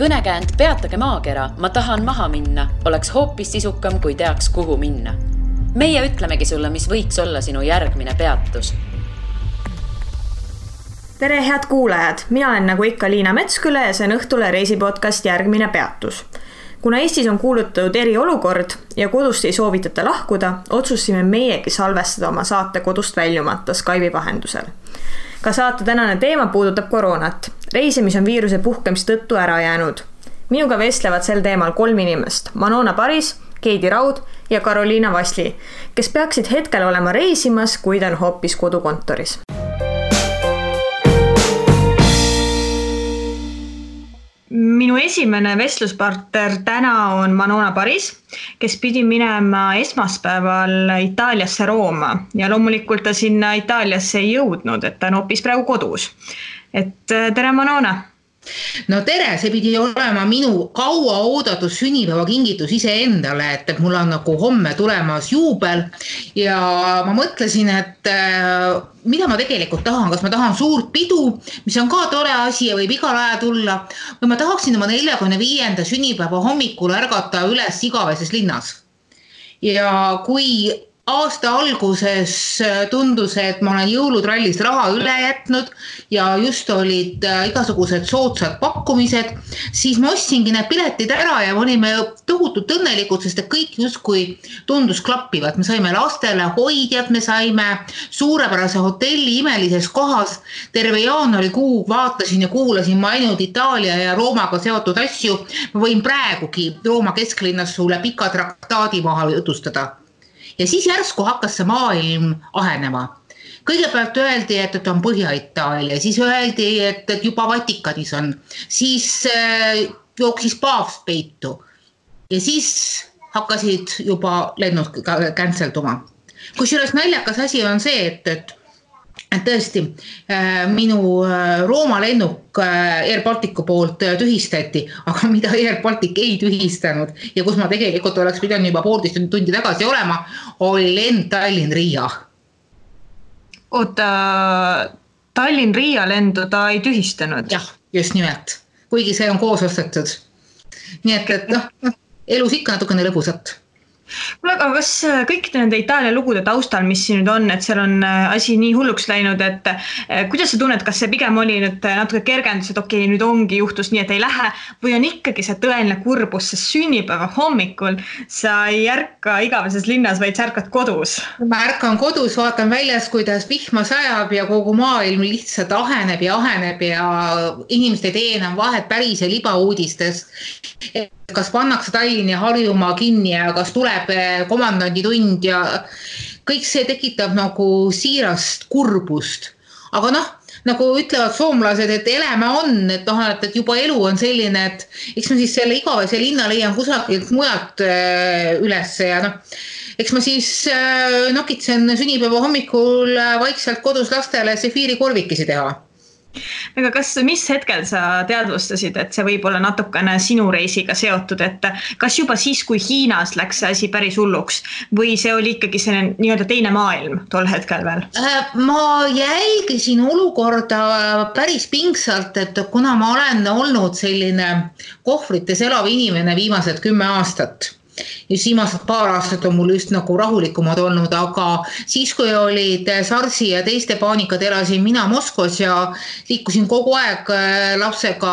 Kõnekäänd Peatage maakera, ma tahan maha minna, oleks hoopis sisukam, kui teaks, kuhu minna. Meie ütlemegi sulle, mis võiks olla sinu järgmine peatus. Tere, head kuulajad! Mina olen nagu ikka Liina Metsküle ja see on Õhtule reisipodcast Järgmine peatus. Kuna Eestis on kuulutatud eriolukord ja kodust ei soovitata lahkuda, otsusime meiegi salvestada oma saate kodust väljumata Skype'i vahendusel. Ka saate tänane teema puudutab koroonat. Reisimis on viiruse puhkemis tõttu ära jäänud. Minuga vestlevad sel teemal 3 inimest. Manona Paris, Keidi Raud ja Karoliina Vasli, kes peaksid hetkel olema reisimas, kuid on hoopis kodukontoris. Minu esimene vestluspartner täna on Manona Paris, kes pidi minema esmaspäeval Itaaliasse Rooma ja loomulikult ta sinna Itaaliasse ei jõudnud, et ta on hoopis praegu kodus. Tere Manona! No tere, see pidi olema minu kaua oodatud sünnipäeva kingitus iseendale, et mul on nagu homme tulemas juubel ja ma mõtlesin, et mida ma tegelikult tahan, kas ma tahan suurt pidu, mis on ka tore asi ja võib igal ajal tulla, või ma tahaksin oma 45. sünnipäeva hommikul ärgata üles Igaveses linnas. Ja kui aasta alguses tundus, et ma olen jõulutrallist raha üle jätnud ja just olid igasugused soodsad pakkumised, siis ma ostsingi need piletid ära ja olime tohutult õnnelikud, sest kõik justkui tundus klappivat. Me saime lastele hoidjad, me saime suurepärase hotelli imelises kohas. Terve jaanuarikuu vaatasin ja kuulasin ma ainult Itaalia ja Roomaga seotud asju. Ma võin praegugi Rooma kesklinnas sulle pika traktaadi maha jutustada. Ja siis järsku hakkas see maailm ahenema. Kõigepealt öeldi, et on Põhja-Itaalia, siis öeldi, et juba Vatikanis on, siis jooksis paavst peitu ja siis hakkasid juba lennud känselduma. Kusjuures naljakas asi on see, et tõesti minu Rooma lennuk Air Balticu poolt tühistati, aga mida Air Baltic ei tühistanud ja kus ma tegelikult oleks pidanud juba 1,5 tundi tagasi olema, oli lend Tallinn-Riia. Oota, Tallinn-Riia lendu ta ei tühistanud? Jah, just nimelt. Kuigi see on koos ostetud. Nii et elus ikka natukene lõbusat. Aga kas kõik nende Itaalia lugude taustal, mis siin nüüd on, et seal on asi nii hulluks läinud, et kuidas sa tunned, kas see pigem oli nüüd natuke kergendus, et okei, nüüd ongi juhtus nii, et ei lähe, või on ikkagi see tõeline kurbus, see sünnipäeva hommikul sa ei ärka Igaveses linnas, vaid sa ärkad kodus? Ma ärkan kodus, vaatan väljas, kuidas vihma sajab ja kogu maailm lihtsalt aheneb ja inimesed ei tee enam vahet päris ja libauudistes. Kas pannakse Tallinn ja Harjumaa kinni ja kas tuleb komandandi tund ja kõik see tekitab nagu siirast kurbust. Aga nagu ütlevad soomlased, et eläme on, et juba elu on selline, et eks ma siis selle Igavese linna leian kusagilt mujalt üles ja eks ma siis nokitsen sünnipäeva hommikul vaikselt kodus lastele sefiirikorvikesi teha. Aga mis hetkel sa teadvustasid, et see võib olla natukene sinu reisiga seotud, et kas juba siis, kui Hiinas läks see asi päris hulluks või see oli ikkagi see nii-öelda teine maailm tol hetkel veel? Ma jälgisin olukorda päris pingsalt, et kuna ma olen olnud selline kohvrites elav inimene viimased 10 aastat, just viimased paar aastat on mul just nagu rahulikumad olnud, aga siis, kui olid SARS-i ja teiste paanikad, elasin mina Moskvas ja liikusin kogu aeg lapsega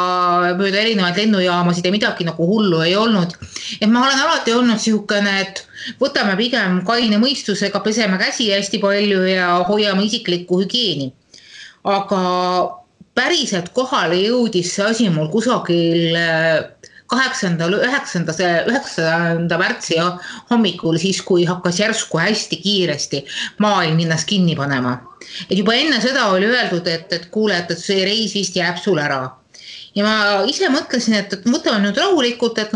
mööda erinevaid lennujaamasid ja midagi nagu hullu ei olnud. Et ma olen alati olnud sihukene, et võtame pigem kaine mõistusega, peseme käsi hästi palju ja hoiame isiklikku hügieeni. Aga päriselt kohale jõudis see asi mul kusagil 8. 9. märtsi hommikul, siis kui hakkas järsku hästi kiiresti maailm ennast kinni panema. Et juba enne seda oli öeldud, et kuule, et see reis vist jääb sul ära. Ja ma ise mõtlesin, et võtame nüüd rahulikult, et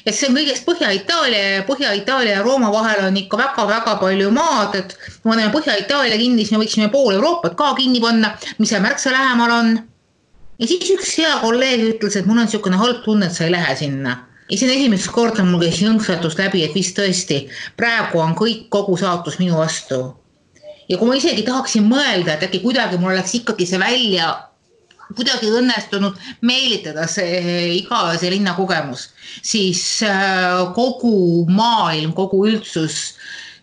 see on kõigest Põhja-Itaalia ja Rooma vahel on ikka väga-väga palju maad, et kui me Põhja-Itaalia kinni, siis me võiksime pool Euroopat ka kinni panna, mis see märksa lähemal on. Ja siis üks hea kolleeg ütles, et mul on niisugune halb tunne, et sa ei lähe sinna. Ja see on esimest korda mul käis jõnksatus läbi, et vist tõesti, praegu on kogu saatus minu vastu. Ja kui ma isegi tahaksin mõelda, et äkki kuidagi mul oleks ikkagi see välja kuidagi õnnestunud meelitada see igavese linna kogemus, siis kogu maailm, kogu üldsus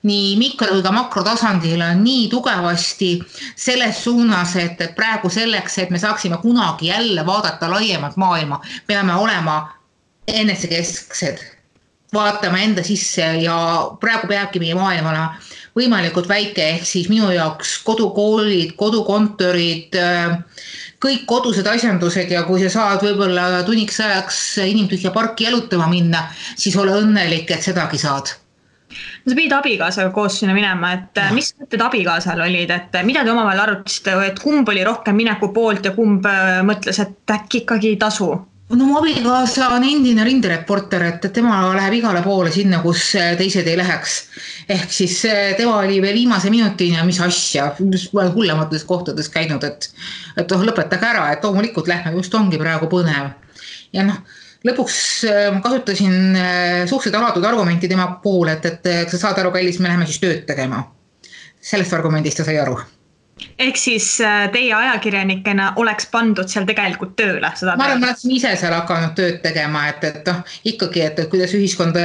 nii mikro- kui ka makrotasandil on nii tugevasti selles suunas, et praegu selleks, et me saaksime kunagi jälle vaadata laiemat maailma, peame olema enesekesksed, vaatama enda sisse ja praegu peabki meie maailm olema võimalikult väike, ehk siis minu jaoks kodukoolid, kodukontorid, kõik kodused asjandused ja kui sa saad võib-olla tunniks ajaks inimtühja parki jalutama minna, siis ole õnnelik, et sedagi saad. No sa pidid abikaasaga koos sinna minema, et mis mõtted abikaasal olid, et mida te omavahel arutasite, et kumb oli rohkem mineku poolt ja kumb mõtles, et äkki ikkagi ei tasu? No mu abikaasa on endine rindereporter, et tema läheb igale poole sinna, kus teised ei läheks. Ehk siis tema oli veel viimase minutini ja mis asja, hullemates kohtades käinud, et lõpetage ära, et loomulikult lähme, just ongi praegu põnev. Ja lõpuks ma kasutasin suhteliselt alatud argumenti tema pool, et sa saad aru, kallis, me läheme siis tööd tegema. Sellest argumendist ta sai aru. Ehk siis teie ajakirjanikena oleks pandud seal tegelikult tööle? Ma arvan, ma olen ise seal hakanud tööd tegema, et ikkagi, et kuidas ühiskond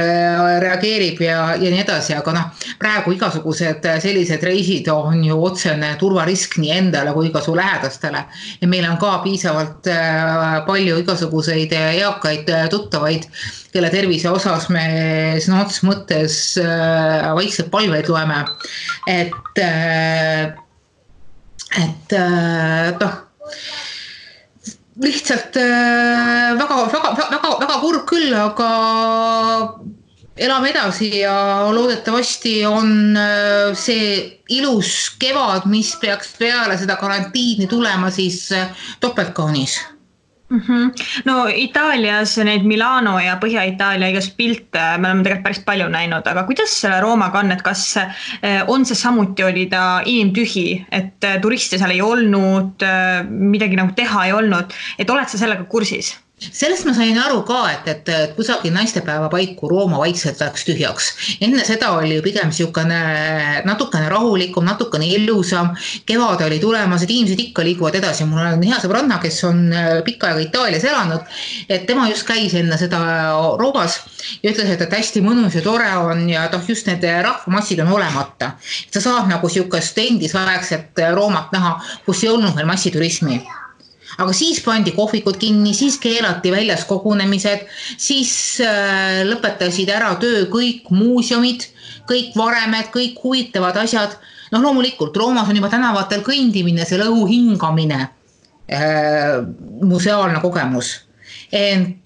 reageerib ja nii edasi, aga praegu igasugused sellised reisid on ju otsene turvarisk nii endale kui ka su lähedastele. Ja meil on ka piisavalt palju igasuguseid eakaid tuttavaid, kelle tervise osas me sõna otseses mõttes vaikselt palveid loeme, lihtsalt väga kurb küll, aga elame edasi ja loodetavasti on see ilus kevad, mis peaks peale seda karantiini tulema, siis topeltkaunis. No Itaalias need Milano ja Põhja-Itaalia igast pilte me oleme tegelikult päris palju näinud, aga kuidas selle Roomaga on, et kas on see samuti oli ta inimtühi, et turiste seal ei olnud, midagi nagu teha ei olnud, et oled sa sellega kursis? Sellest ma sain aru ka, et kusagil naistepäeva paiku Rooma vaikselt läks tühjaks. Enne seda oli ju pigem natukene rahulikum, natukene ilusam. Kevad oli tulemas, et inimesed ikka liiguvad edasi. Mul on hea sõbranna, kes on pikka aega Itaalias elanud, et tema just käis enne seda Roomas ja ütles, et hästi mõnus ja tore on ja just need rahvamassid on olemata. Sa saad nagu siukest endisaegset Roomat näha, kus ei olnud veel massiturismi. Aga siis pandi kohvikud kinni, siis keelati väljas kogunemised, siis lõpetasid ära töö kõik muuseumid, kõik varemed, kõik huvitavad asjad. Loomulikult, Roomas on juba tänavatel kõndimine, see õhu hingamine, museaalne kogemus. Ent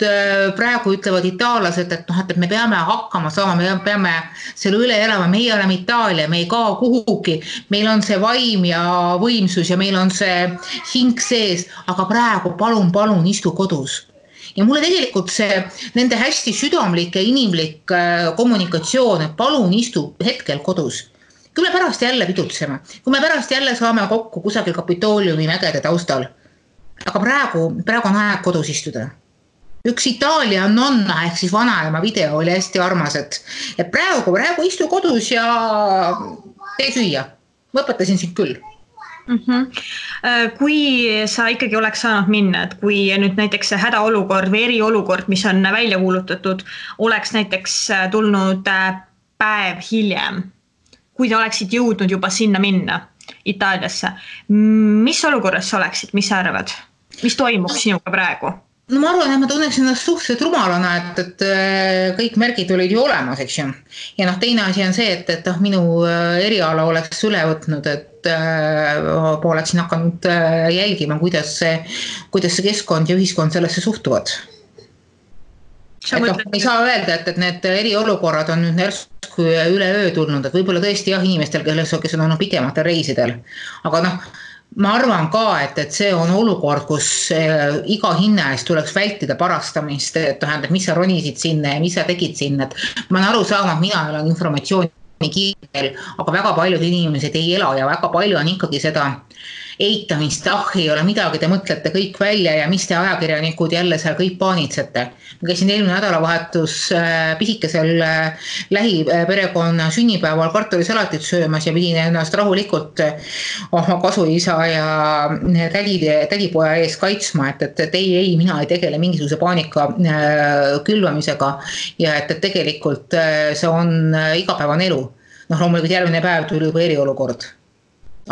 praegu ütlevad itaallased, et me peame hakkama saama, me peame selle üle elama, meie oleme Itaalia, me ei kao kuhugi, meil on see vaim ja võimsus ja meil on see hing sees, aga praegu palun istu kodus. Ja mulle tegelikult see nende hästi südamlik ja inimlik kommunikatsioon, et palun istu hetkel kodus. Kui me pärast jälle pidutseme, kui me pärast jälle saame kokku kusagil Kapitooliumi mägede taustal, aga praegu on aeg kodus istuda. Üks Itaalia nonna ehk siis vanaema video oli hästi armas, et praegu istu kodus ja tee süüa. Ma õpetasin sind küll. Kui sa ikkagi oleks saanud minna, et kui nüüd näiteks see hädaolukord või eriolukord, mis on välja kuulutatud, oleks näiteks tulnud päev hiljem, kui te oleksid jõudnud juba sinna minna Itaaliasse, mis olukorras sa oleksid, mis sa arvad? Mis toimuks sinuga praegu? Ma arvan, et ma tunneks ennast suhteliselt rumalana, et kõik märgid olid ju olemas, eks ju. Ja teine asi on see, et minu eriala oleks üle võtnud, et oleksin hakanud jälgima, kuidas see keskkond ja ühiskond sellesse suhtuvad. Ei saa öelda, et need eriolukorrad on nüüd järsku üleöö tulnud, et võib-olla tõesti inimestel, kes on olnud pikematel reisidel. Aga ma arvan ka, et see on olukord, kus iga hinna eest tuleks vältida parastamist, et mis sa ronisid sinna ja mis sa tegid sinna. Ma olen aru saama, et mina olen informatsiooni kiirel, aga väga paljud inimesed ei ela ja väga palju on ikkagi seda eitamist, ei ole midagi, te mõtlete kõik välja ja mis te ajakirjanikud jälle seal kõik paanitsete. Ma käisin eelmine nädalavahetus pisikesel lähiperekonna sünnipäeval kartulisalatit söömas ja pidin ennast rahulikult oma kasuisa ja tädipoja ees kaitsma, et ei, mina ei tegele mingisuguse paanika külvamisega ja et tegelikult see on igapäevane elu. Loomulikult järgmine päev tuli juba eriolukord.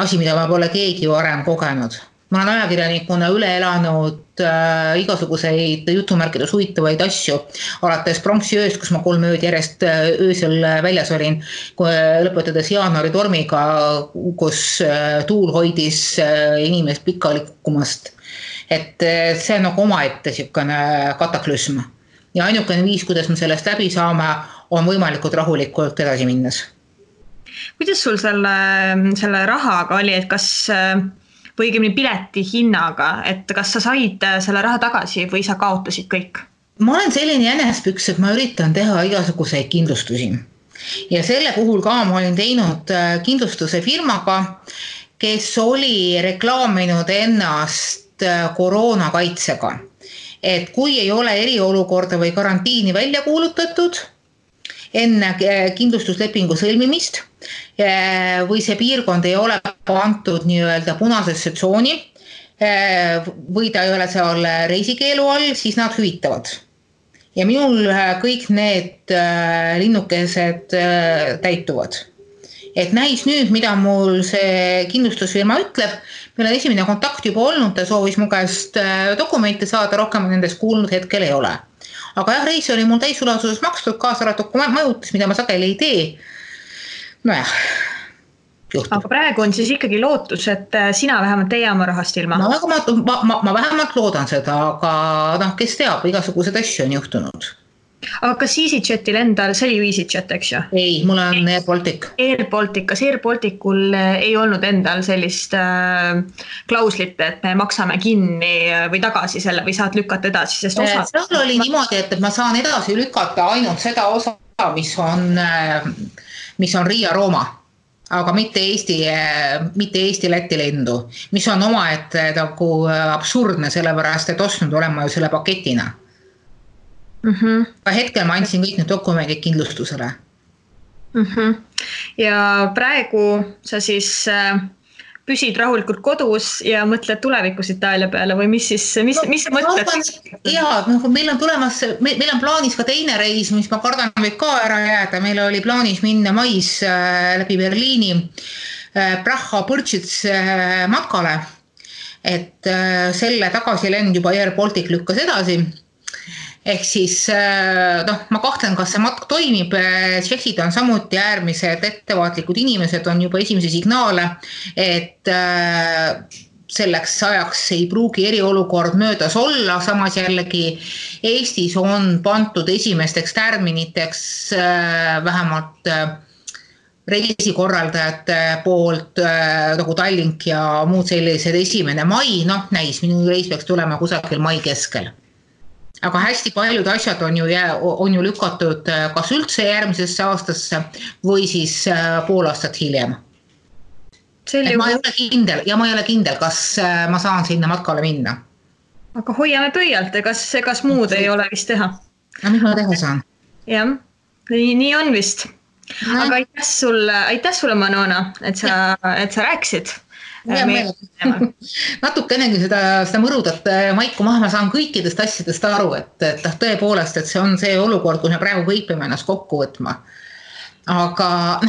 Asi, mida ma pole keegi varem kogenud. Ma olen ajakirjanikuna üle elanud igasuguseid jutumärkides huvitavaid asju, alates pronksiööst, kus ma 3 ööd järjest öösel väljas olin, lõpetades jaanuari tormiga, kus tuul hoidis inimest pikali kukkumast. Et see on nagu omaette siukene kataklüsm. Ja ainukene viis, kuidas me sellest läbi saame, on võimalikult rahulikult edasi minnes. Kuidas sul selle rahaga oli, et kas, või õigemini pileti hinnaga, et kas sa said selle raha tagasi või sa kaotasid kõik? Ma olen selline jänespüks, et ma üritan teha igasuguseid kindlustusi. Ja selle puhul ka ma olin teinud kindlustuse firmaga, kes oli reklaaminud ennast koroonakaitsega. Et kui ei ole eriolukorda või karantiini välja kuulutatud, enne kindlustuslepingu sõlmimist või see piirkond ei ole antud nii-öelda punasesse tsooni või ta ei ole seal reisikeelu all, siis nad hüvitavad. Ja minul kõik need linnukesed täituvad. Et näis nüüd, mida mul see kindlustusfirma ütleb, meil on esimene kontakt juba olnud, ta soovis mu käest dokumente saada, rohkem nendest kuulnud hetkel ei ole. Aga jah, reis oli mul täisulasuses makstud, kaasaratuku majutis, mida ma sageli ei tee. Nojah, juhtub. Aga praegu on siis ikkagi lootus, et sina vähemalt ei jää oma rahast ilma? Ma vähemalt loodan seda, aga kes teab, igasugused asju on juhtunud. Aga kas EasyJetil endal, see oli EasyJet, eks ju? Ei, mul on Air Baltic. Kas Air Balticul ei olnud endal sellist klauslit, et me maksame kinni või tagasi selle või saad lükata edasi? Sest seal oli niimoodi, et ma saan edasi lükata ainult seda osa, mis on Riia-Rooma, aga mitte Eesti Läti lendu, mis on omaette nagu absurdne, sellepärast, et ostnud olema ju selle paketina. Hetkel ma andsin kõik need dokumendid kindlustusele. Ja praegu sa siis püsid rahulikult kodus ja mõtled tulevikus Itaalia peale või mis sa mõtled? Jaa, meil on plaanis ka teine reis, mis ma kardan võib ka ära jääda. Meil oli plaanis minna mais läbi Berliini Praha-Põrtsits matkale, et selle tagasilend juba Air Baltic lükkas edasi. Ehk siis, ma kahtlen, kas see matk toimib, tšehhid on samuti äärmised ettevaatlikud inimesed, on juba esimese signaale, et selleks ajaks ei pruugi eriolukord möödas olla, samas jällegi Eestis on pandud esimesteks tärminiteks vähemalt reisikorraldajate poolt, nagu Tallink ja muud sellised 1. mai, näis, minu reis peaks tulema kusagil mai keskel. Aga hästi paljud asjad on ju lükatud kas üldse järgmisesse aastasse või siis pool aastat hiljem. Ma ei ole kindel, kas ma saan sinna matkale minna. Aga hoiame pöialt, kas muud ei ole vist teha? Mis ma teha saan? Jah, nii on vist. Aga aitäh sulle, Manona, et sa rääkisid. Natukenegi seda mõrudat maiku maha, ma saan kõikidest asjadest aru, et tõepoolest, et see on see olukord, kus me praegu kõik peame ennast kokku võtma. Aga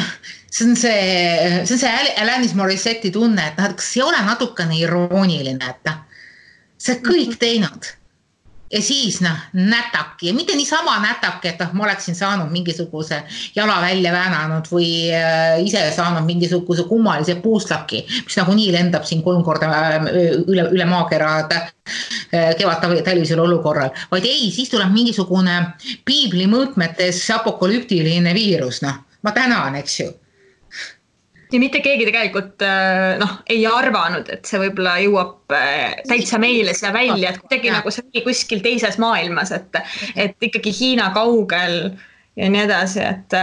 see on see Alanis Morissetti tunne, et kas ei ole natukene irooniline, et see kõik teinud. Ja siis nätaki, ja mitte niisama nätaki, et ma oleksin saanud mingisuguse jala välja väänanud või ise saanud mingisuguse kummalise puuslaki, mis nagu nii lendab siin 3 korda üle maakera kevadtalvisel olukorral. Vaid ei, siis tuleb mingisugune piibli mõõtmetes apokalüptiline viirus. Ma tänan, eks ju. Ja mitte keegi tegelikult ei arvanud, et see võib-olla jõuab täitsa meile siia välja, et kuidagi nagu see oli kuskil teises maailmas, et ikkagi Hiina kaugel ja nii edasi, et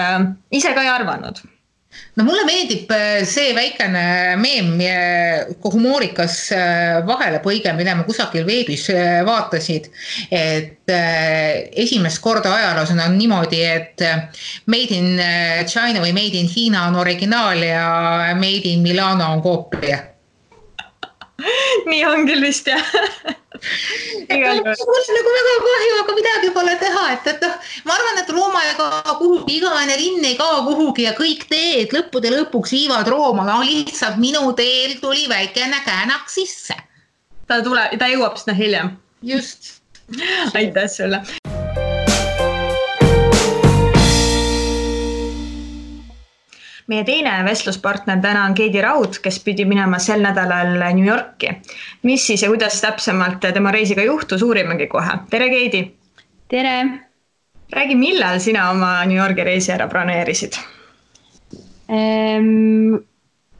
ise ka ei arvanud. No mulle meeldib see väikene meem, humoorikas vahelepõige, mida ma kusagil veebis vaatasid, et esimest korda ajaloos on niimoodi, et Made in China või Made in Hiina on originaal ja Made in Milano on koopia. Nii on küll vist, jah. Mul on nagu väga kahju, aga midagi pole teha, et ma arvan, et Rooma ei kao kuhugi, igaene linn ei kao kuhugi ja kõik teed lõppude lõpuks viivad Rooma, no lihtsalt minu teel tuli väikene käänak sisse. Ta jõuab sinna hiljem. Just. Aitäh sulle. Meie teine vestluspartner täna on Keidi Raud, kes pidi minema sel nädalal New Yorki. Mis siis ja kuidas täpsemalt tema reisiga juhtus, uurimegi kohe. Tere, Keidi! Tere! Räägi, millal sina oma New Yorki reisi ära broneerisid?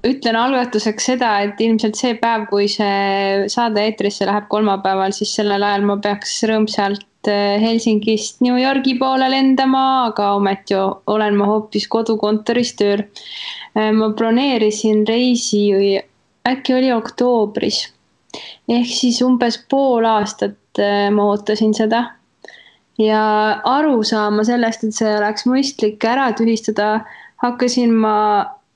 Ütlen algatuseks seda, et ilmselt see päev, kui see saade eetrisse läheb kolmapäeval, siis sellel ajal ma peaks rõõmsalt Helsingist New Yorgi poole lendama, aga ometi olen ma hoopis kodukontoris tööl. Ma broneerisin reisi, äkki oli oktoobris. Ehk siis umbes pool aastat ma ootasin seda. Ja aru saama sellest, et see oleks mõistlik ära tühistada, hakkasin ma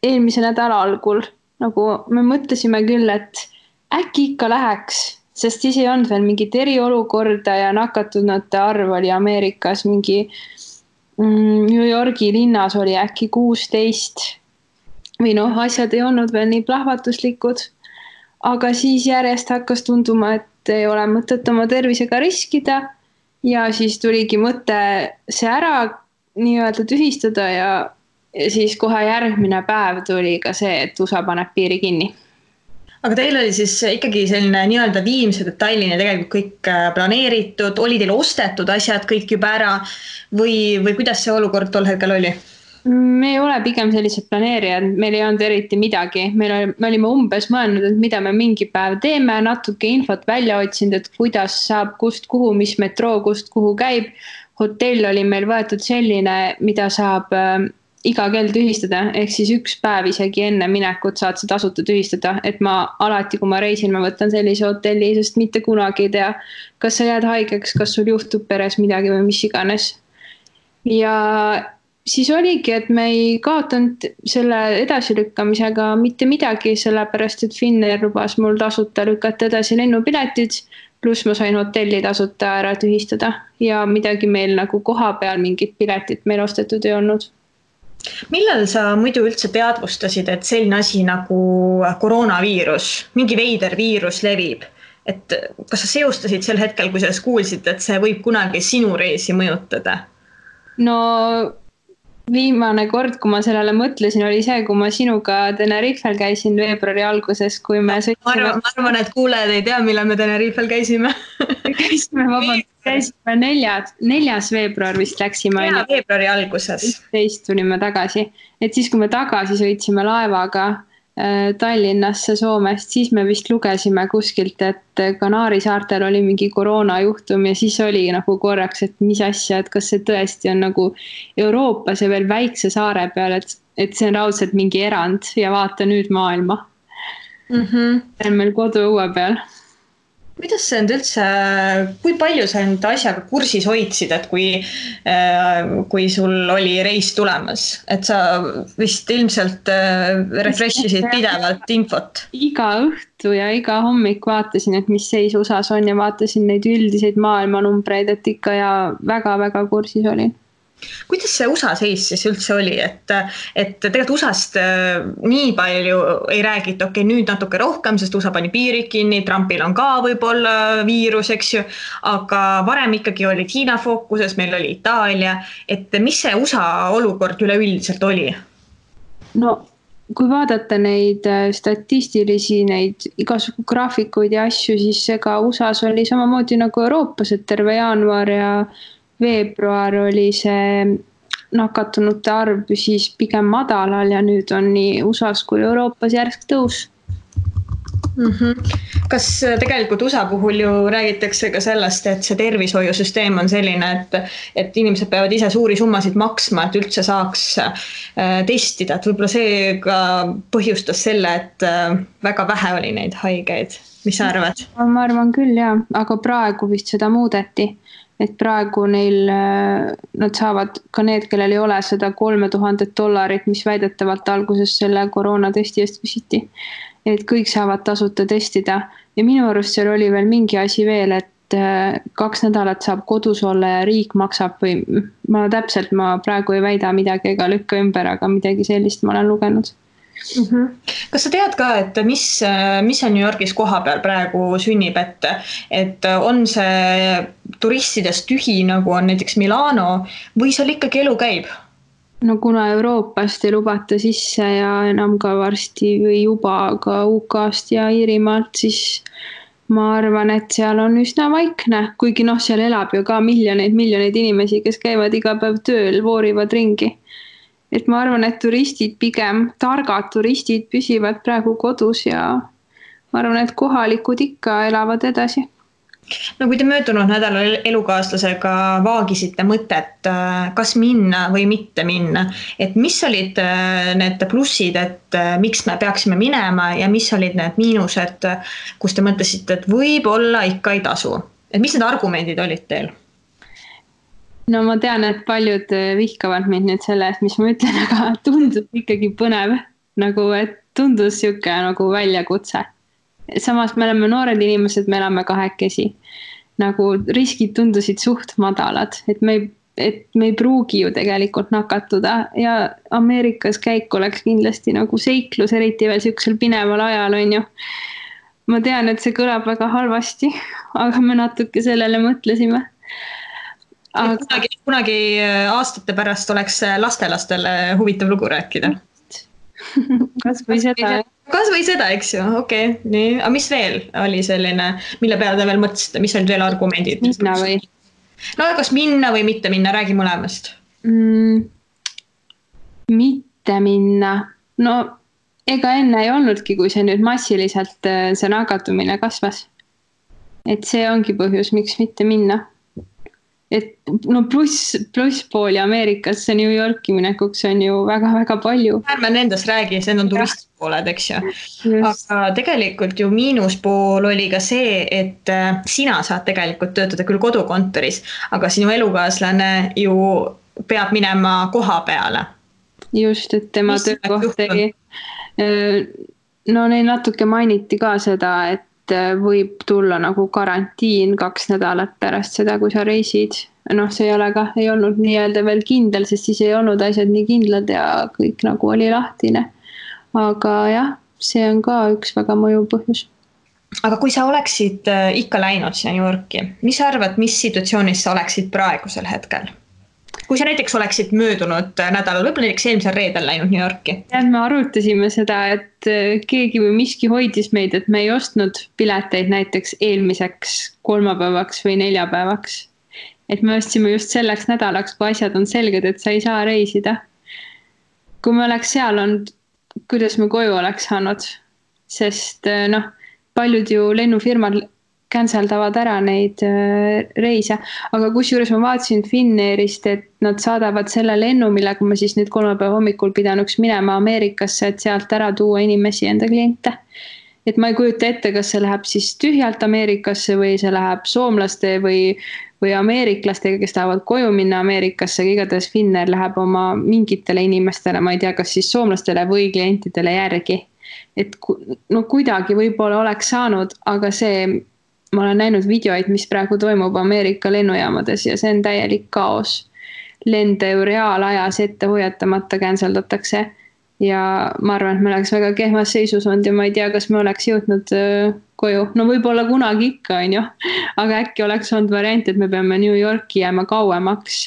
eelmise nädala algul. Nagu me mõtlesime küll, et äkki ikka läheks. Sest siis ei olnud veel mingit eriolukorda ja nakatunute arv oli Ameerikas mingi New Yorgi linnas oli äkki 16 või asjad ei olnud veel nii plahvatuslikud, aga siis järjest hakkas tunduma, et ei ole mõtet oma tervisega riskida ja siis tuligi mõte see ära nii-öelda tühistada ja siis kohe järgmine päev tuli ka see, et USA paneb piiri kinni. Aga teil oli siis ikkagi selline nii-öelda viimse detailini tegelikult kõik planeeritud, oli teil ostetud asjad kõik juba ära või kuidas see olukord tol hetkel oli? Me ei ole pigem sellised planeerijad, meil ei olnud eriti midagi. Me olime umbes mõelnud, et mida me mingi päev teeme, natuke infot välja otsinud, et kuidas saab kust kuhu, mis metroo kust kuhu käib. Hotell oli meil võetud selline, mida saab iga kell tühistada, ehk siis üks päev isegi enne minekut saad sa tasuta tühistada, et ma alati, kui ma reisin, ma võtan sellise hotelli, sest mitte kunagi ei tea, kas sa jääd haigeks, kas sul juhtub peres midagi või mis iganes. Ja siis oligi, et me ei kaotanud selle edasilükkamisega mitte midagi, sellepärast, et Finnair lubas mul tasuta lükata edasi lennupiletid, pluss ma sain hotelli tasuta ära tühistada ja midagi meil nagu koha peal mingit piletit meil ostetud ei olnud. Millal sa muidu üldse teadvustasid, et selline asi nagu koroonaviirus, mingi veider viirus levib? Et kas sa seostasid sel hetkel, kui sellest kuulsid, et see võib kunagi sinu reisi mõjutada? No viimane kord, kui ma sellele mõtlesin, oli see, kui ma sinuga Tenerifel käisin veebruari alguses, kui me sõitsime. Ma arvan, et kuulejad ei tea, millal me Tenerifel käisime. Käisime 4. veebruar vist läksime. Ja, veebruari alguses. 11 tulime tagasi. Et siis, kui me tagasi sõitsime laevaga Tallinnasse Soomest, siis me vist lugesime kuskilt, et Kanaari saartel oli mingi koroonajuhtum ja siis oli nagu korraks, et mis asja, et kas see tõesti on nagu Euroopas ja veel väikse saare peal, et see on raudselt mingi erand ja vaata nüüd maailma. See on meil kodu õue peal. Kuidas see on üldse, kui palju sa nüüd asjaga kursis hoidsid, et kui sul oli reis tulemas, et sa vist ilmselt refreshisid pidevalt infot? Iga õhtu ja iga hommik vaatasin, et mis seis USAs on ja vaatasin neid üldiseid maailmanumbreid, et ikka ja väga-väga kursis olin. Kuidas see USA seis siis üldse oli, et tegelikult USAst nii palju ei räägita, okei, nüüd natuke rohkem, sest USA pani piirid kinni, Trumpil on ka võib-olla viirus, eks ju, aga varem ikkagi oli Hiina fookuses, meil oli Itaalia, et mis see USA olukord üleüldiselt oli? No, kui vaadata neid statistilisi, neid igasugu graafikuid ja asju, siis ega USAs oli samamoodi nagu Euroopas, et terve jaanuar ja veebruar oli see nakatunute arv siis pigem madalal ja nüüd on nii USAs kui Euroopas järsk tõus. Kas tegelikult USA puhul ju räägitakse ka sellest, et see tervishoiusüsteem on selline, et inimesed peavad ise suuri summasid maksma, et üldse saaks testida, et võib-olla see ka põhjustas selle, et väga vähe oli neid haigeid. Mis sa arvad? Ma arvan küll, jah, aga praegu vist seda muudeti, et praegu neil, nad saavad ka need, kellel ei ole seda $3000, mis väidetavalt alguses selle koroonatesti eest küsiti. Et kõik saavad tasuta testida ja minu arust seal oli veel mingi asi veel, et 2 nädalat saab kodus olla ja riik maksab või ma praegu ei väida midagi ega lükka ümber, aga midagi sellist ma olen lugenud. Kas sa tead ka, et mis on New Yorgis koha peal praegu sünnib, et on see turistidest tühi, nagu on näiteks Milano või seal ikkagi elu käib? No kuna Euroopast ei lubata sisse ja enam ka varsti või juba ka UK-st ja Iirimaalt, siis ma arvan, et seal on üsna vaikne, kuigi seal elab ju ka miljoneid inimesi, kes käivad iga päev tööl, voorivad ringi. Et ma arvan, et turistid pigem, targad turistid püsivad praegu kodus ja ma arvan, et kohalikud ikka elavad edasi. No kui te möödunud nädalal elukaaslasega vaagisite mõtet, kas minna või mitte minna, et mis olid need plussid, et miks me peaksime minema ja mis olid need miinused, kus te mõtlesite, et võib-olla ikka ei tasu? Et mis need argumendid olid teil? No ma tean, et paljud vihkavad mind nüüd selle eest, mis ma ütlen, aga tundus ikkagi põnev, nagu et tundus siuke nagu väljakutse. Samas me oleme noored inimesed, me elame kahekesi. Nagu riskid tundusid suht madalad, et me ei pruugi ju tegelikult nakatuda ja Ameerikas käik oleks kindlasti nagu seiklus, eriti veel siuksel pineval ajal on ju. Ma tean, et see kõlab väga halvasti, aga me natuke sellele mõtlesime. Aga... Kunagi aastate pärast oleks lastelastele huvitav lugu rääkida. Kas või seda, eks ju, okei. Nii. Aga mis veel oli selline, mille peale te veel mõtlesite, mis olid veel argumendid? Minna või? No kas minna või mitte minna, räägi mõlemast. Mitte minna. No ega enne ei olnudki, kui see nüüd massiliselt see nakatumine kasvas. Et see ongi põhjus, miks mitte minna. Et no pluss pooli Ameerikasse New Yorki minekuks on ju väga-väga palju. Ärme nendest räägi, see on turistpooled, eks ju. Aga tegelikult ju miinuspool oli ka see, et sina saad tegelikult töötada küll kodukontoris, aga sinu elukaaslane ju peab minema koha peale. Just, et tema töökoht ei... No neil natuke mainiti ka seda, et võib tulla nagu karantiin 2 nädalat pärast seda, kui sa reisid. No see ei olnud nii-öelda veel kindel, sest siis ei olnud asjad nii kindlad ja kõik nagu oli lahtine. Aga jah, see on ka üks väga mõjuv põhjus. Aga kui sa oleksid ikka läinud siia New Yorki, mis sa arvad, mis situatsioonis sa oleksid praegusel hetkel? Kui sa näiteks oleksid möödunud nädalal, võib-olla näiteks eelmisel reedel läinud New Yorki? Me arutasime seda, et keegi või miski hoidis meid, et me ei ostnud pileteid näiteks eelmiseks 3 päevaks või 4 päevaks. Et me ostsime just selleks nädalaks, kui asjad on selged, et sa ei saa reisida. Kui me oleks seal olnud, kuidas me koju oleks saanud, sest paljud ju lennufirmad canceldavad ära neid reise, aga kusjuures ma vaatasin Finnairist, et nad saadavad selle lennu, millega ma siis nüüd 3 päeva hommikul pidanuks minema Ameerikasse, et sealt ära tuua inimesi enda kliente. Et ma ei kujuta ette, kas see läheb siis tühjalt Ameerikasse või see läheb soomlaste või ameeriklastega, kes tahavad koju minna Ameerikasse, igatahes Finnair läheb oma mingitele inimestele, ma ei tea, kas siis soomlastele või klientidele järgi. Et no kuidagi võib-olla oleks saanud, aga ma olen näinud videoid, mis praegu toimub Ameerika lennujaamades ja see on täielik kaos. Lende ju reaalajas ette hoiatamata canceldatakse ja ma arvan, et me oleks väga kehvas seisus olnud ja ma ei tea, kas me oleks jõudnud koju. No võib-olla kunagi ikka on ju, aga äkki oleks olnud variant, et me peame New Yorki jääma kauemaks.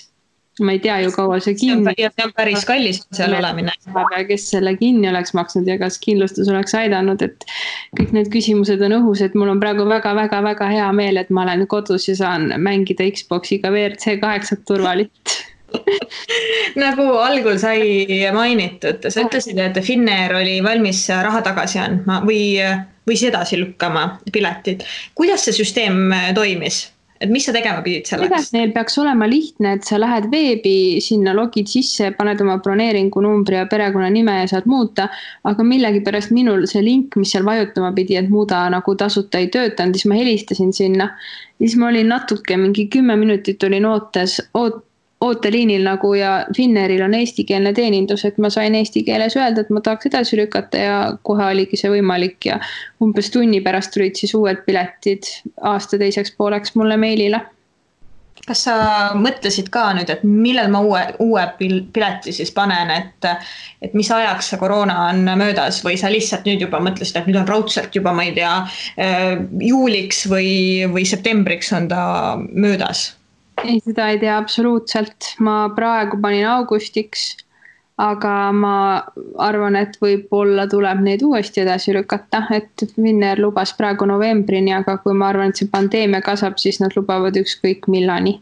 Ma ei tea ju kaua see kinni. Ja see on päris kallis seal olemine. Kes selle kinni oleks maksnud ja kas kindlustus oleks aidanud, et kõik need küsimused on õhus, et mul on praegu väga hea meel, et ma olen kodus ja saan mängida Xboxiga WRC 8 turvalit. Nagu algul sai mainitud, sa ütlesid, et Finnair oli valmis raha tagasi andma või või siis edasi lükkama piletid. Kuidas see süsteem toimis? Et mis sa tegema pidid selleks? Neil peaks olema lihtne, et sa lähed veebi, sinna logid sisse, paned oma broneeringu numbri ja perekonna nime ja saad muuta, aga millegipärast minul see link, mis seal vajutama pidi, et muuda nagu tasuta ei töötanud, siis ma helistasin sinna. Siis ma olin natuke, mingi 10 minutit olin ooteliinil nagu ja Finnairil on eestikeelne teenindus, et ma sain eesti keeles öelda, et ma tahaks edasi lükata ja kohe oligi see võimalik ja umbes tunni pärast tulid siis uued piletid aasta teiseks pooleks mulle meilile. Kas sa mõtlesid ka nüüd, et millal ma uue pileti siis panen, et mis ajaks see koroona on möödas või sa lihtsalt nüüd juba mõtlesid, et nüüd on raudselt juba, ma ei tea, juuliks või septembriks on ta möödas? Ei, seda ei tea absoluutselt. Ma praegu panin augustiks, aga ma arvan, et võib-olla tuleb neid uuesti edasi lükata, et Finnair lubas praegu novembrini, aga kui ma arvan, et see pandeemia kasvab, siis nad lubavad ükskõik millani.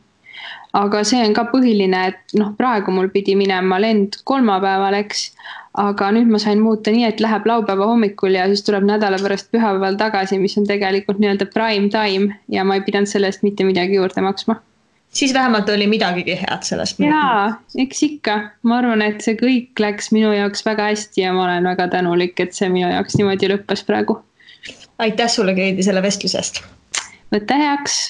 Aga see on ka põhiline, et praegu mul pidi minema lend kolmapäeval, eks, aga nüüd ma sain muuta nii, et läheb laupäeva hommikul ja siis tuleb nädala pärast pühapäeval tagasi, mis on tegelikult nii-öelda prime time ja ma ei pidanud sellest mitte midagi juurde maksma. Siis vähemalt oli midagigi head sellest. Jaa, eks ikka. Ma arvan, et see kõik läks minu jaoks väga hästi ja ma olen väga tänulik, et see minu jaoks niimoodi lõppes praegu. Aitäh sulle, Keidi, selle vestlusest. Võtta heaks.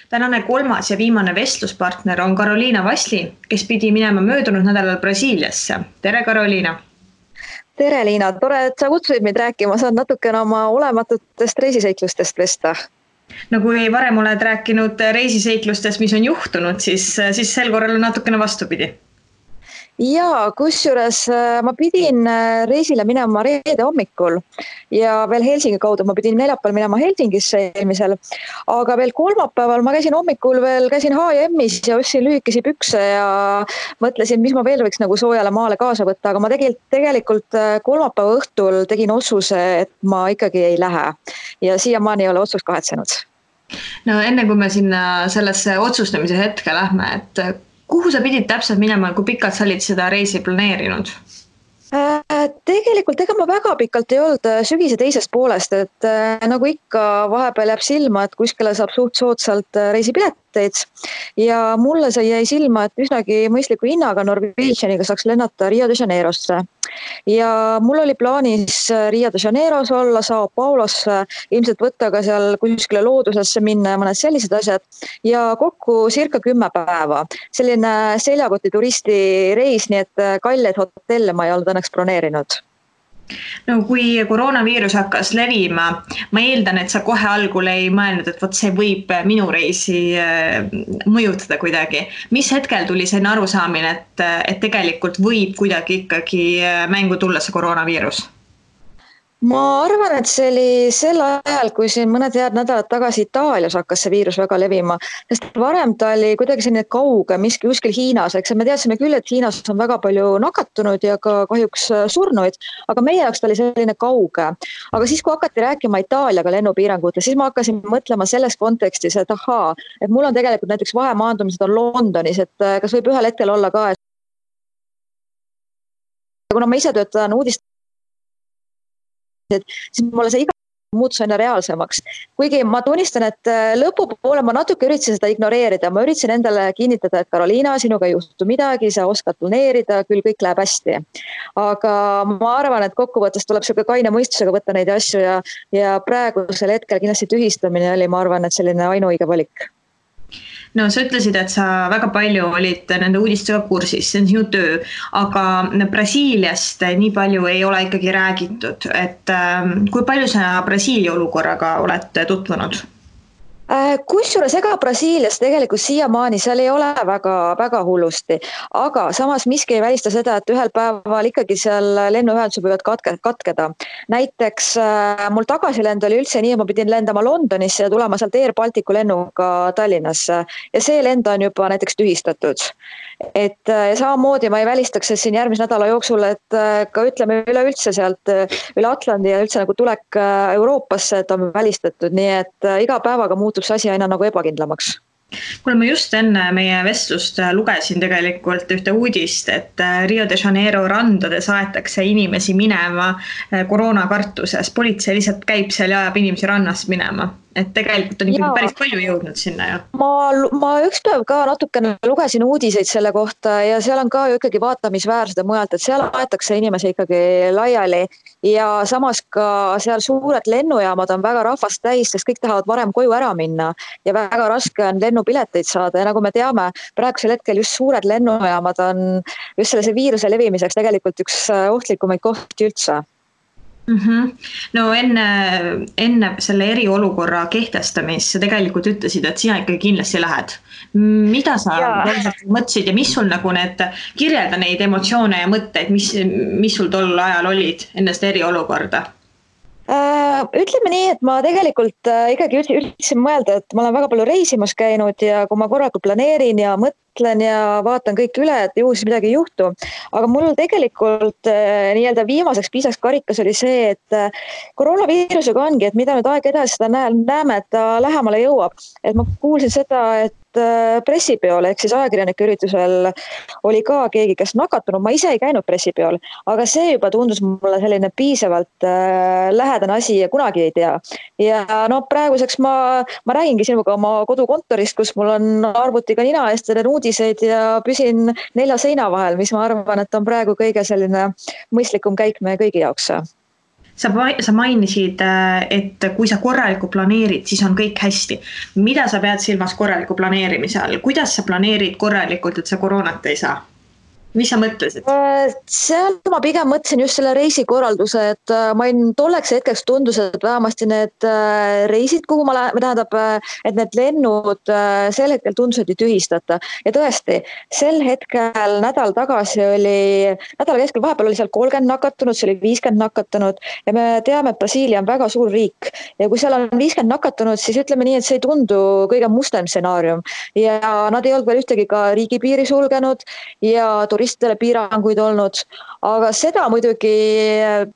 Tänane kolmas ja viimane vestluspartner on Karoliina Vasli, kes pidi minema möödunud nädalal Brasiiliasse. Tere, Karoliina! Tere, Liina! Tore, et sa kutsusid meid rääkima. Saad natukene oma olematutest reisiseiklustest vesta. No kui varem oled rääkinud reisiseiklustest, mis on juhtunud, siis sel korral on natukene vastupidi. Jaa, kusjuures ma pidin reisile minema reede hommikul ja veel Helsingi kaudu ma pidin neljapäeval minema Helsingisse eelmisel, aga veel kolmapäeval ma käisin hommikul käisin H&M-is ja ostsin lühikesi pükse ja mõtlesin, mis ma veel võiks nagu soojale maale kaasa võtta, aga ma tegelikult kolmapäeva õhtul tegin otsuse, et ma ikkagi ei lähe ja siiamaani ei ole otsust kahetsenud. No enne kui me sinna sellesse otsustamise hetke lähme, et kuhu sa pidid täpselt minema, kui pikalt sa olid seda reisi planeerinud? Tegelikult ega ma väga pikalt ei olnud sügise teisest poolest, et nagu ikka vahepeal jääb silma, et kuskile saab suht soodsalt reisipileteid ja mulle see jäi silma, et üsnagi mõistliku hinnaga Norwegianiga saaks lennata Rio de Janeirosse. Ja mul oli plaanis Rio de Janeiros olla, Sao Paulosse, ilmselt võtta ka seal kuskile loodusesse minna ja mõned sellised asjad ja kokku circa 10 päeva. Selline seljakoti turisti reis, nii et kalleid hotelle ma ei olnud õnneks broneerinud. No kui koroonaviirus hakkas levima, ma eeldan, et sa kohe algul ei mõelnud, et see võib minu reisi mõjutada kuidagi. Mis hetkel tuli selline arusaamine, et tegelikult võib kuidagi ikkagi mängu tulla see koroonaviirus? Ma arvan, et see oli sel ajal, kui siin mõned head nädalad tagasi Itaalias hakkas see viirus väga levima, sest varem ta oli kuidagi selline kauge, miski kuskil Hiinas, eks me teadsime küll, et Hiinas on väga palju nakatunud ja ka kahjuks surnuid, aga meie jaoks ta oli selline kauge. Aga siis, kui hakati rääkima Itaaliaga lennupiirangute, siis ma hakkasin mõtlema selles kontekstis, et et mul on tegelikult näiteks vahemaandumised on Londonis, et kas võib ühel hetkel olla ka, et kuna ma ise töötan siis mulle see iga muutus aina reaalsemaks. Kuigi ma tunnistan, et lõpupoole ma natuke üritasin seda ignoreerida. Ma üritasin endale kinnitada, et Karoliina, sinuga ei juhtu midagi, sa oskad planeerida, küll kõik läheb hästi. Aga ma arvan, et kokkuvõttes tuleb selline kaine mõistusega võtta neid asju ja praegusel hetkel kindlasti tühistamine oli, ma arvan, et selline ainuõige valik. No sa ütlesid, et sa väga palju olid nende uudistega kursis, see on sinu töö, aga Brasiiliast nii palju ei ole ikkagi räägitud, et kui palju sa Brasiilia olukorraga oled tutvunud? Kusjuures ega Brasiilias tegelikult siiamaani seal ei ole väga hullusti, aga samas miski ei välista seda, et ühel päeval ikkagi seal lennuühendused võivad katkeda. Näiteks mul tagasilend oli üldse nii, et ma pidin lendama Londonisse ja tulema sealt Air Balticu lennuga Tallinnasse ja see lend on juba näiteks tühistatud. Et samamoodi ma ei välistaks siin järgmise nädala jooksul, et ka ütleme üleüldse sealt üle Atlandi ja üldse nagu tulek Euroopasse, et on välistatud, nii et iga päevaga muutub see asi aina nagu ebakindlamaks. Kuule, ma just enne meie vestlust lugesin tegelikult ühte uudist, et Rio de Janeiro randades aetakse inimesi minema koroonakartuses. Politsei lihtsalt käib seal ja ajab inimesi rannast minema. Et tegelikult on ikkagi päris palju jõudnud sinna ju. Ma üks päev ka natukene lugesin uudiseid selle kohta ja seal on ka ju ikkagi vaatamisväärsed mujalt, et seal aetakse inimesi ikkagi laiali ja samas ka seal suured lennujaamad on väga rahvast täis, sest kõik tahavad varem koju ära minna ja väga raske on lennupileteid saada ja nagu me teame, praegusel hetkel just suured lennujaamad on just sellise viiruse levimiseks tegelikult üks ohtlikumaid kohti üldse. No enne selle eriolukorra kehtestamist sa tegelikult ütlesid, et sina ikkagi kindlasti lähed. Mida sa mõtlesid ja mis sul nagu kirjelda neid emotsioone ja mõtteid, mis sul tol ajal olid enne seda eriolukorda? Ütleme nii, et ma tegelikult ikkagi üritasin mõelda, et ma olen väga palju reisimas käinud ja kui ma korraga planeerin ja mõtlen ja vaatan kõik üle, et juhul siis midagi ei juhtu. Aga mul tegelikult nii-öelda viimaseks piisaks karikas oli see, et koroonaviirusega ongi, et mida nüüd aeg edasi seda näeme, et ta lähemale jõuab. Et ma kuulsin seda, et pressipeol ehk siis ajakirjanike üritusel oli ka keegi, kes nakatunud. Ma ise ei käinud pressipeol, aga see juba tundus mulle selline piisavalt lähedane asi ja kunagi ei tea. Ja praeguseks ma räägingi sinuga oma kodukontorist, kus mul on arvutiga nina eest teen uudiseid ja püsin 4 seina vahel, mis ma arvan, et on praegu kõige selline mõistlikum käik meie kõigi jaoks. Sa mainisid, et kui sa korralikult planeerid, siis on kõik hästi. Mida sa pead silmas korraliku planeerimise all? Kuidas sa planeerid korralikult, et sa koroonat ei saa? Mis sa mõtlesid? Seal ma pigem mõtlesin just selle reisikorralduse, et ma tolleks hetkeks tundus, et vähemasti need reisid, kuhu ma et need lennud sel hetkel tundusid tühistata. Ja tõesti, sel hetkel nädal keskel vahepeal oli seal 30 nakatunud, see oli 50 nakatunud ja me teame, et Brasiilia on väga suur riik ja kui seal on 50 nakatunud, siis ütleme nii, et see ei tundu kõige mustem stsenaarium ja nad ei olnud veel ühtegi ka riigipiiri sulgenud ja turistidele piiranguid olnud, aga seda muidugi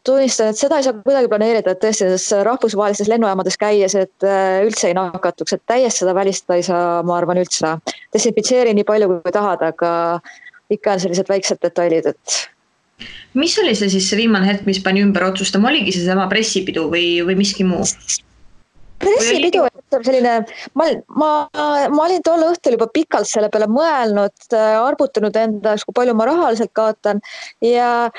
tunnistan, et seda ei saa kuidagi planeerida, et tõesti rahvusvahelistes lennujaamades käies, et üldse ei nakatuks, et täiesti seda välistada ei saa, ma arvan üldse. Desinfitseeri nii palju kui tahad, aga ikka on sellised väiksed detailid, et mis oli see siis see viimane hetk, mis pani ümber otsustama? Oligi see sama pressipidu või miski muu? Pressipidu, selline, ma olin tol õhtul juba pikalt selle peale mõelnud, arvutanud endaks, kui palju ma rahaliselt kaotan ja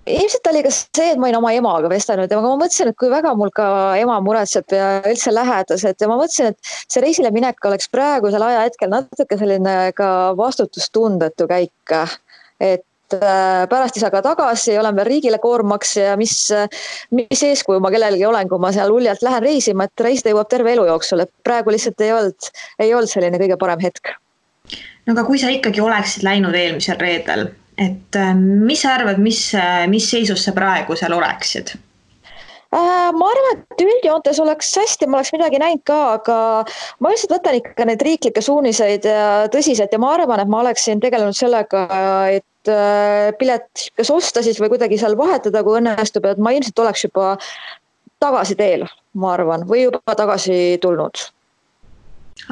ilmselt oli ka see, et ma olin oma emaga vestelnud ja ma mõtlesin, et kui väga mul ka ema muretseb ja üldse lähedased ja ma mõtlesin, et see reisile minek oleks praegusel ajahetkel natuke selline ka vastutustundetu käik, et pärast ei saa ka tagasi, olen veel riigile koormaks ja mis eeskuju ma kellelegi olen, kui ma seal uljalt lähen reisima, et reisida jõuab terve elu jooksul, et praegu lihtsalt ei olnud selline kõige parem hetk. No aga kui sa ikkagi oleksid läinud eelmisel reedel, et mis sa arvad, mis seisus sa praegu seal oleksid? Ma arvan, et üldjoontes oleks hästi, ma oleks midagi näinud ka, aga ma lihtsalt võtan ikka neid riiklikke suuniseid tõsiselt ja ma arvan, et ma oleksin tegelenud sellega, et pilet kas osta siis või kuidagi seal vahetada, kui õnnestub, et ma ilmselt oleks juba tagasi teel, ma arvan, või juba tagasi tulnud.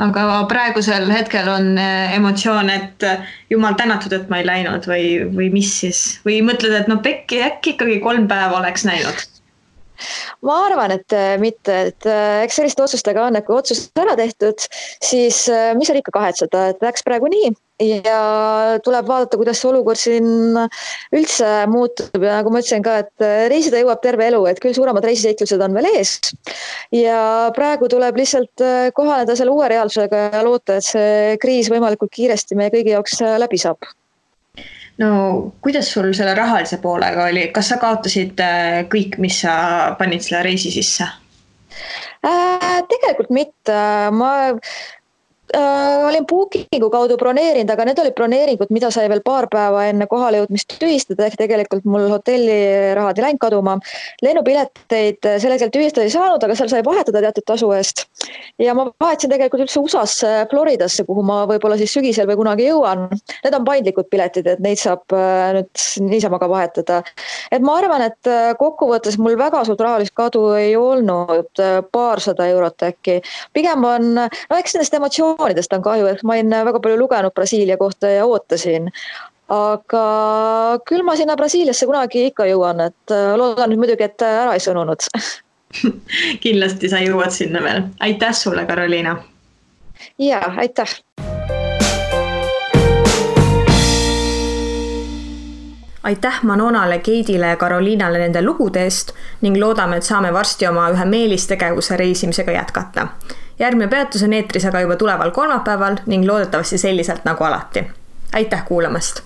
Aga praegusel hetkel on emotsioon, et jumal tänatud, et ma ei läinud või mis siis? Või mõtled, et äkki ikkagi 3 päeva oleks näinud? Ma arvan, et mitte, et eks selliste otsustega on, et kui otsus ära tehtud, siis mis on ikka kahetseda, et läks praegu nii ja tuleb vaadata, kuidas see olukord siin üldse muutub ja nagu ma ütlesin ka, et reisida jõuab terve elu, et küll suuremad reisiseiklused on veel ees ja praegu tuleb lihtsalt kohaneda selle uue reaalsusega ja loota, et see kriis võimalikult kiiresti meie kõigi jaoks läbi saab. No kuidas sul selle rahalise poolega oli? Kas sa kaotasid kõik, mis sa panid selle reisi sisse? Tegelikult mitte. Ma olin Bookingu kaudu broneerinud, aga need olid broneeringud, mida sai veel paar päeva enne kohale jõudmist tühistada, ehk tegelikult mul hotellirahad ei läinud kaduma. Lennupileteid sel hetkel tühistada ei saanud, aga seal sai vahetada teatud tasu eest. Ja ma vahetasin tegelikult üldse USAsse, Floridasse, kuhu ma võib-olla siis sügisel või kunagi jõuan. Need on paindlikud piletid, et neid saab nüüd niisama ka vahetada. Et ma arvan, et kokkuvõttes mul väga suurt rahalist kadu ei olnud, 200 eurot äkki. Pigem on, eks nendest emotsioonidest informatsioonidest on kahju, et ma olen väga palju lugenud Brasiilia kohta ja ootasin. Aga küll ma sinna Brasiiliasse kunagi ikka jõuan, et loodan nüüd muidugi, et ära ei sõnunud. Kindlasti sa jõuad sinna veel. Aitäh sulle, Karoliina! Ja, aitäh! Aitäh Manonale, Keidile ja Karoliinale nende lugude eest ning loodame, et saame varsti oma ühe meelistegevuse reisimisega jätkata. Järgmine peatus on eetris aga juba tuleval kolmapäeval ning loodetavasti selliselt nagu alati. Aitäh kuulamast!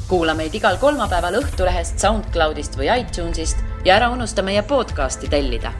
Kuula meid igal kolmapäeval Õhtulehest, SoundCloudist või iTunesist ja ära unusta meie podcasti tellida.